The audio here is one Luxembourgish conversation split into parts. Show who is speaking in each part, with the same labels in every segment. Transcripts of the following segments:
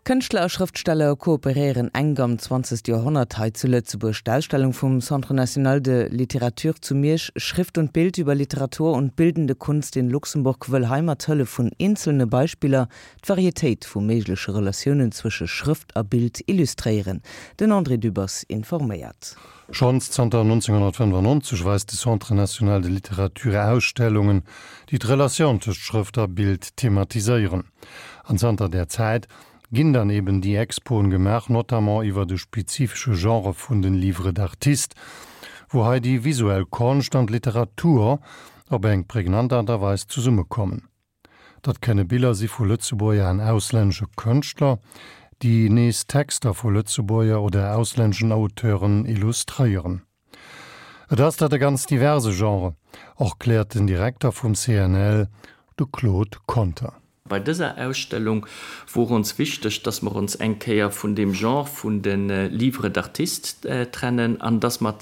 Speaker 1: Kënschtler a Schrëftsteller kooperéieren enk am 20. Joerhonnert hei zu Lëtzebuerg. D'Ausstellung vum Centre national de littérature zu Miersch Schrift und Bild über Literatur und bildende Kunst in Luxemburg wëll hei mat Hëllef vun eenzelne Beispiller d'Varietéit vu méigleche Relatiounen zwësche Schrëft a Bild illustréieren. Den André Dübbers informéiert.
Speaker 2: Schonns zanter 1995 weist de Centre national de littérature Ausstellungen, déi d'Relatioun tëscht Schrëft a Bild thematiséieren. An zanter där Zäit ginn dann eben déi Expoen gemaach, notamment iwwer de spezifesche Genre vun den Livres d'artistes, wou hei déi visuell Konscht an d'Literatur op eng prägnant Aart a Weis zesummekommen. Dat kënne Biller si vu Lëtzebuerger an auslännesche Kënschtler, déi nees Texter vu Lëtzebuerger oder auslänneschen Auteuren illustréieren. Et ass dat e ganz diverse Genre, erkläert den Direkter vum CNL, de Claude Conter.
Speaker 3: Bei dëser Ausstellung wor ons wichteg, dass mer ons eng Kéier vun deem Genre vun de Livres d'artistes trennen an dass mer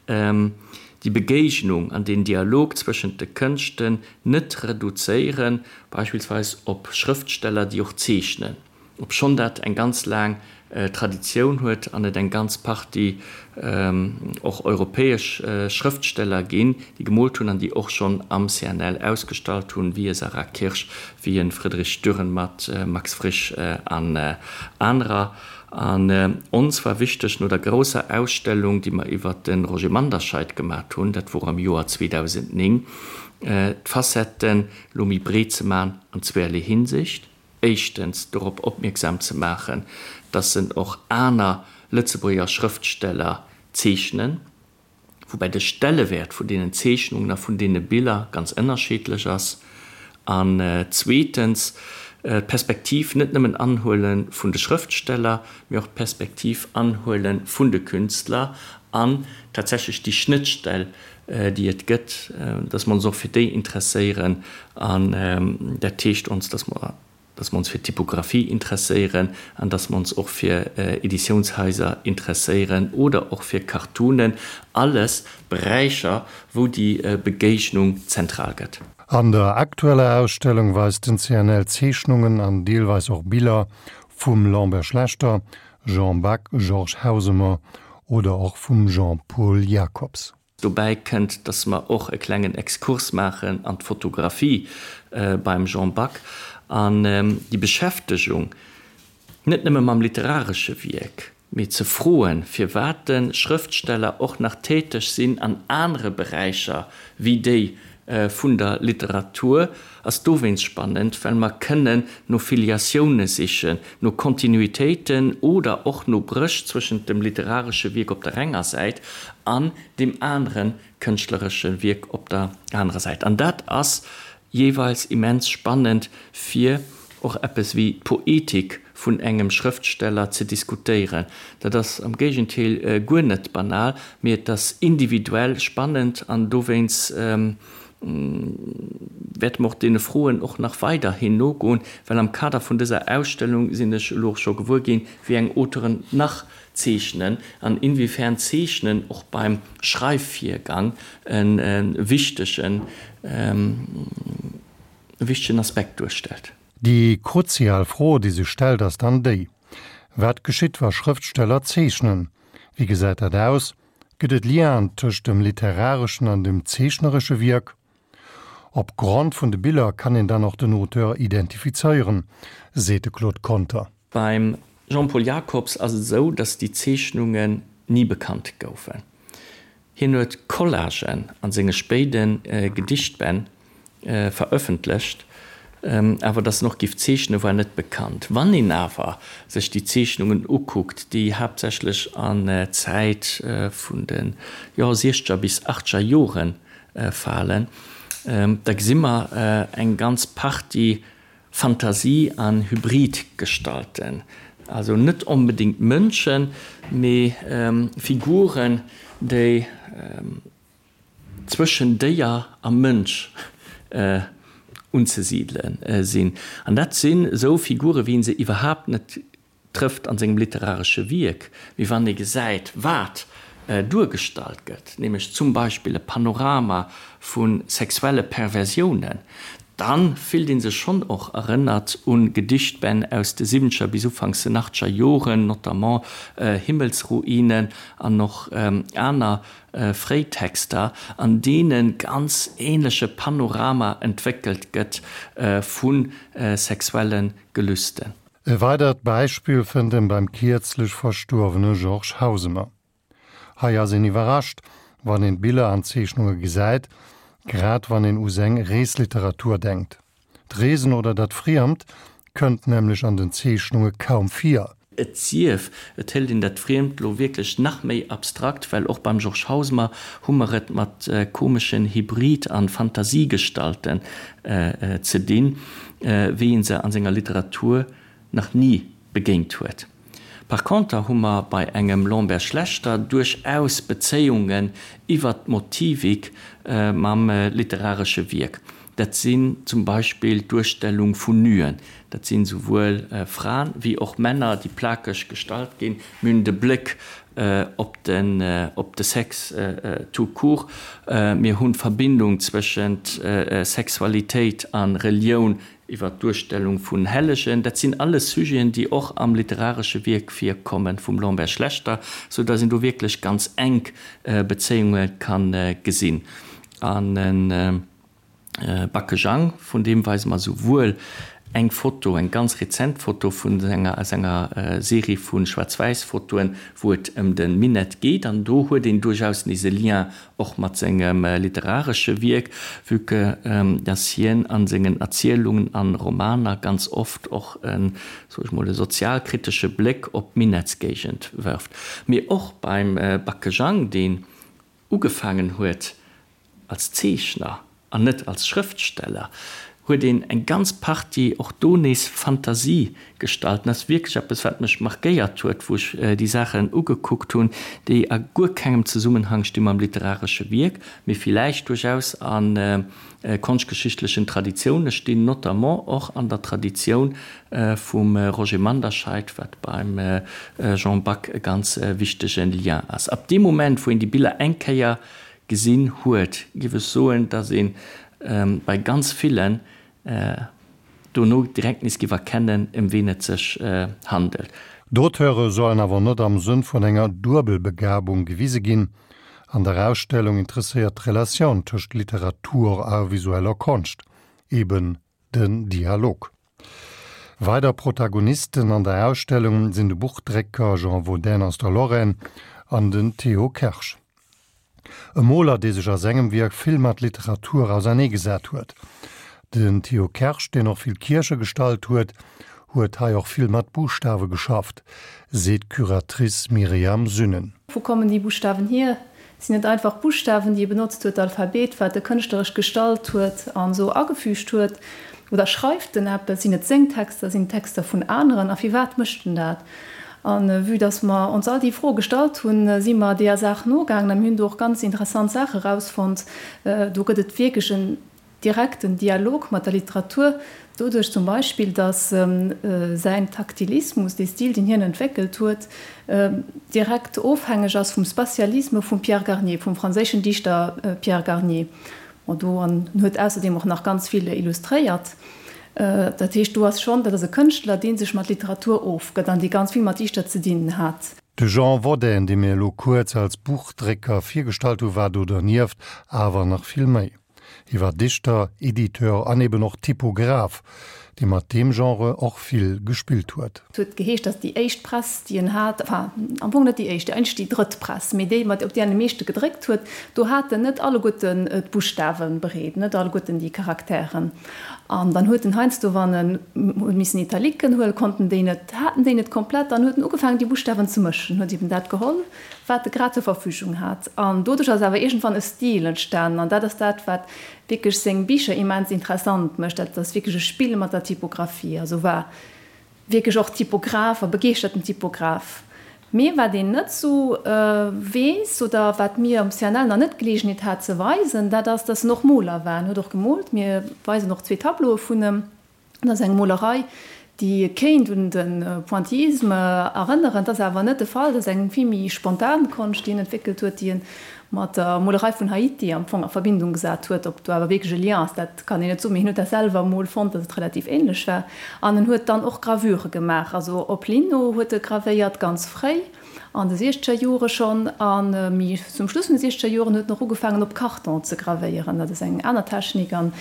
Speaker 3: déi Begéignung an deen Dialog zwëschent de Kënschten net reduzéieren, beispillsweis op Schrëftsteller, déi och zeechnen, obschonn dat eng ganz laang Traditioun huet an et eng ganz Partie och europäesch Schrëftsteller ginn, déi gemoolt hunn an déi och schonn am CNL ausgestallt hunn, wéi e Sarah Kirsch, wéi e Friedrich Dürrenmatt, Max Frisch an anerer. An ons war wichteg, no der grousser Ausstellung, déi mer iwwert de Roger Manderscheid gemat hunn, dat wor am Joer 2009, d'Facetten elo méi breet ze man an zweerlee Hinsicht. Éischtens dorop opmierksam ze maachen, dass en och aner Lëtzebuerger Schrëftsteller zeechnen, woubäi de Stellewäert vun deenen Zeechnungen a vun deene Biller ganz ënnerscheedlech ass, an zweetens d'Perspektiv net nëmmen anhuele vun de Schrëftsteller, mee och d'Perspektiv anhuele vun de Künstler an tatsächlech déi Schnëttstell, déi et gëtt, dass mer ons och fir déi interesséieren. An dat heescht ons, dass mer dass mer ons fir d'Typographie interesséieren an dass mer ons och fir Editiounshaiser interesséieren oder och fir Cartoonen, alles Beräicher, wou déi Begéignung zentral gëtt.
Speaker 2: An der aktueller Ausstellung weist den CNL Zeechnungen an deelweis och Biller vum Lambert Schlechter, Jean Back, Georges Hausemer oder och vum Jean-Paul Jacobs.
Speaker 3: Dobäi kënnt, dass mer och e klengen Exkurs maachen an d'Fotografie beim Jean Back an déi Beschäftegung net nëmme mam literaresche Wierk, mee ze froen, firwat de Schrëftsteller och nach täteg sinn an anere Beräicher wéi déi vun der Literatur, ass dowéinst spannend, well mer kënnen no Filiatioune sichen, no Kontinuitéiten oder och no Bréch zwëschent dem literaresche Wierk op der enger Säit an deem anere kënschtleresche Wierk op der anerer Säit. An dat ass jeeweils immens spannend, fir och eppes wéi d'Poetik vun engem Schrëftsteller ze diskutéieren. Dat ass am Géigentéel guer net banal, mee et ass individuell spannend an dowéinst wäerte mer och deene Froen och nach weiderhin nogoen, well am Kader vun dëser Ausstellung sinn ech elo och scho gewuer ginn, wéi eng Auteuren nach zeechnen an inwiefern Zeechnen och beim Schreifvirgang e wichtegen wichtegen Aspekt duerstellt.
Speaker 2: Déi kruzial Fro, déi sech stellt, ass dann déi, Wat geschitt, wa Schrëftsteller zeechnen? Wéi gesäit dat aus? Gëtt et Lienen tëscht dem literareschen an dem zeechneresche Wierk? Op Grond vun de Biller kann een dann och den Auteur identifizéieren, seet de Claude Conter.
Speaker 3: Beim Jean-Paul Jacobs ass et esou, datt déi Zeechnungen ni bekannt goufen. Hien huet Collagen a senge spéide Gedichtbänn verëffentlecht, awer datt en och giff zeechnen, war net bekannt. Wann een awer sech déi Zeechnungen ukuckt, déi haaptsächlech an d'Zäit vun de jo siechzeger bis achtzeger Jore falen, da gesi mer eng ganz Partie Fantasie an Hybridgestalten, also net onbedéngt Mënschen, mee Figuren, déi zwëschen Déier a Mënsch unzesidele sinn. An dat sinn esou Figure wéi ee se iwwerhaapt net trëfft an sengem literaresche Wierk, mee wann ee gesäit, wat duergestallt gëtt, nämlech zum Beispill e Panorama vu sexuelle Perversiounen. Dann fillt een sech schonn och erënnert un Gedichtbänn aus de siwwenzeger bis ufanks den achteger Joren, notamment Himmelsruinen an och aner fréi Texter, an deene ganz ähnleche Panorama entwéckelt gëtt vu sexuelle Gelüsten.
Speaker 2: E weidert Beispill fënnt en beim kierzlech verstuerwene Georges Hausemer. Hei ass een iwwerrascht, wann een d'Biller an d'Zeechnunge gesäit, grad wann een u seng Reesliteratur denkt. D'Reesen oder dat Friemt kënnt nämlech an den Zeechnunge kaum vir.
Speaker 3: Et sief, et hëlt een dat Friemt lo wierklech nach méi abstrakt, well och beim Georges Hausemer hu mer et mat komeschen Hybrid an Fantasiegestalten ze dinn, wéi een se an senger Literatur nach ni begéint huet. Par conter hu mer bei engem Lambert Schlechter duerchaus Bezéiungen iwwert d'Motivik mam literaresche Wierk. Dat sinn zum Beispill d'Duerstellung vun Nuen. Dat sinn esouwuel Fraen wéi och Männer, déi plakeg gestallt ginn. Mir hunn de Bléck op de Sex tout court. Mir hunn d'Verbindung zwëschent Sexualitéit a Relioun Iwwer d'Duerstellung vun Hellegen, dat sinn alles Sujeten, déi och am literaresche Wierk virkommen vum Lambert Schlechter, sou datt een do wierklech ganz enk Bezéiunge ka gesinn. An e Backe Jang, vun deem weise mer souwuel eng Foto, eng ganz rezent Foto vun senger, aus enger Serie vu Schwaarz-Wäiss-Fotoen, wou et ëm de Minett geet, an do huet een duerchaus nees e Lien och mat sengem literaresche Wierk, vue que dass hien a sengen Erzielungen an Romaner ganz oft och en, soe ech mol, e sozialkritesche Bléck op d'Minettsgéigend wërft. Mee och beim Backe Jang, deen ugefaangen huet als Zeechner an net als Schrëftsteller, huet een eng ganz Partie och do nees Fantasiegestalten. Dat ass wierklech eppes, wat mech markéiert huet, wou ech déi Saachen ugekuckt hunn, déi a guer kengem Zesummenhang sti mam literaresche Wierk, mee villäicht duerchaus a konschtgeschichtlechen Traditioune stinn, notamment och an der Traditioun vum Roger Manderscheid, wat beim Jean Back e ganz wichtege Lien ass. Ab deem Moment, wou een déi Biller eng Kéier gesinn huet, géif ech soen, dass ee bei ganz villen dono direkt nees géif erkennen, ëm ween et sech handelt.
Speaker 2: D'Auteure sollen awer net am Sënn vun enger Duebelbegabung gewise ginn. An der Ausstellung interesséiert d'Relatioun tëscht Literatur a visueller Konscht, eben den Dialog. Weider Protagonisten an der Ausstellung sinn de Buchdrécker Jean Vaudin aus der Lorraine an den Théo Kersch. E Moler, dee sech a sengem Wierk vill mat Literatur auserneegesat huet. Den Théo Kersch, deen och vill Kierche gestallt huet, huet hei och vill mat Buschtawe geschafft, seet d'Curatrice Myriam Sünnen.
Speaker 4: Wou kommen déi Buschtawen hier? Sinn et einfach Buschtawen, déi e benotzt huet, d'Alphabet, wat e kënschtleresch gestalt huet an esou agefügt huet? Oder schreift en eppes? Sinn et seng Texter? Sinn et Texter vun aneren? A firwat mécht en dat? A vue dass mer ons all déi Froe gestallt hunn, si mer deeër Saach nogaangen a mir hunn do och ganz interessant Saache erausfonnt. Do gëtt et wierklech en direkten Dialog mat der Literatur, doduerch zum Beispill, datt säin Taktilismus, dee Stil, deen hien entwéckelt huet, direkt ofhängeg ass vum Spatialisme vum Pierre Garnier, vum franséischen Dichter Pierre Garnier. Bon, do an en huet ausserdeem och nach ganz vill illustréiert. Dat heescht, do ass schonn, dat ass e Kënschtler, dee sech mat Literatur ofgëtt an dee ganz vill mat Dichter ze dinn hat.
Speaker 2: De Jean Wodän, dee mir elo kuerz als Buchdrécker virgestallt hu, war do dernieft awer nach vill méi. Hie war Dichter, Editeur an eben och Typograph, dee mat deem Genre och vill gespillt huet.
Speaker 4: Et huet geheescht, datt déi éischt Press, déi en hat, enfin am Fong net déi éischt, eigentlech déi drëtt Press, mee déi, mat op där en am meeschte gedréckt huet, do hat en net alleguerten d'Buschtawe bereet, net alleguerten déi Charakteren. An dann huet en heiansdo, wann en huet missen Italiken huelen, konnt en déi net, hat en déi net komplett, dann huet en ugefaangen, déi Buschtawen ze mëschen, huet eben dat geholl, wat e grad zur Verfügung hat. An doduerch ass awer iergendwann e Stil entstanen. An dat ass dat, wat wierklech seng Bicher immens interessant mécht. Dat ass wierklech e Spill mat der Typographie. Also war wierklech och Typograph a begeeschterten Typograph. Mee wat een net sou weess oder wat mir am CNL nach net d'Geleegenheet hat ze weisen, dat ass, dass en och Moler war. En huet och gemoolt. Mir weisen och zwee Tableaue vun em. Dat ass eng Molerei, déi kéint un de Pointillisme erënneren. Dat ass awer net de Fall. Dat ass eng vill méi spontan Konscht, déi en entwéckelt huet, déi e. mat der Molerei vun Haiti am Fong a Verbindung gesat huet. Ob do awer wierklech e Lien ass, dat kann een net soen, mee hien huet dat selwer emol fonnt, datt et relativ änlech war. An en huet dann och Gravure gemaach, also op Lino huet e gravéiert, ganz fréi an de siechzeger Jore schonn. A méi zum Schluss vun de siechzeger Joren huet en och ugefaangen op Karton ze gravéieren, dat ass eng aner Technik, an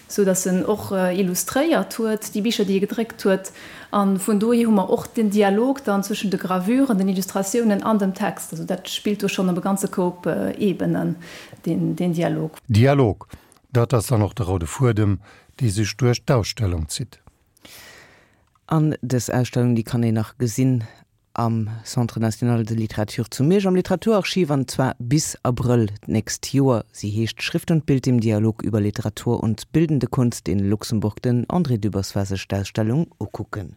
Speaker 4: sou datt en och illustréiert huet déi Bicher, déi e gedréckt huet. A vun dohier hu mer och den Dialog dann zwëschen de Gravuren, den Illustratiounen an dem Text. Also dat spillt do schonn op e ganze Koup Ebenen, deen Dialog.
Speaker 2: Dialog, dat ass dann och de roude Fuedem, dee sech duerch d'Ausstellung zitt.
Speaker 1: An dës Ausstellung, déi kann een nach gesinn am Centre national de littérature zu Miersch am Literaturarchiv, an zwar bis Abrëll d'nächst Joer. Si heescht Schrift und Bild im Dialog über Literatur und bildende Kunst in Luxemburg. Den André Dübbers war sech d'Ausstellung ukucken.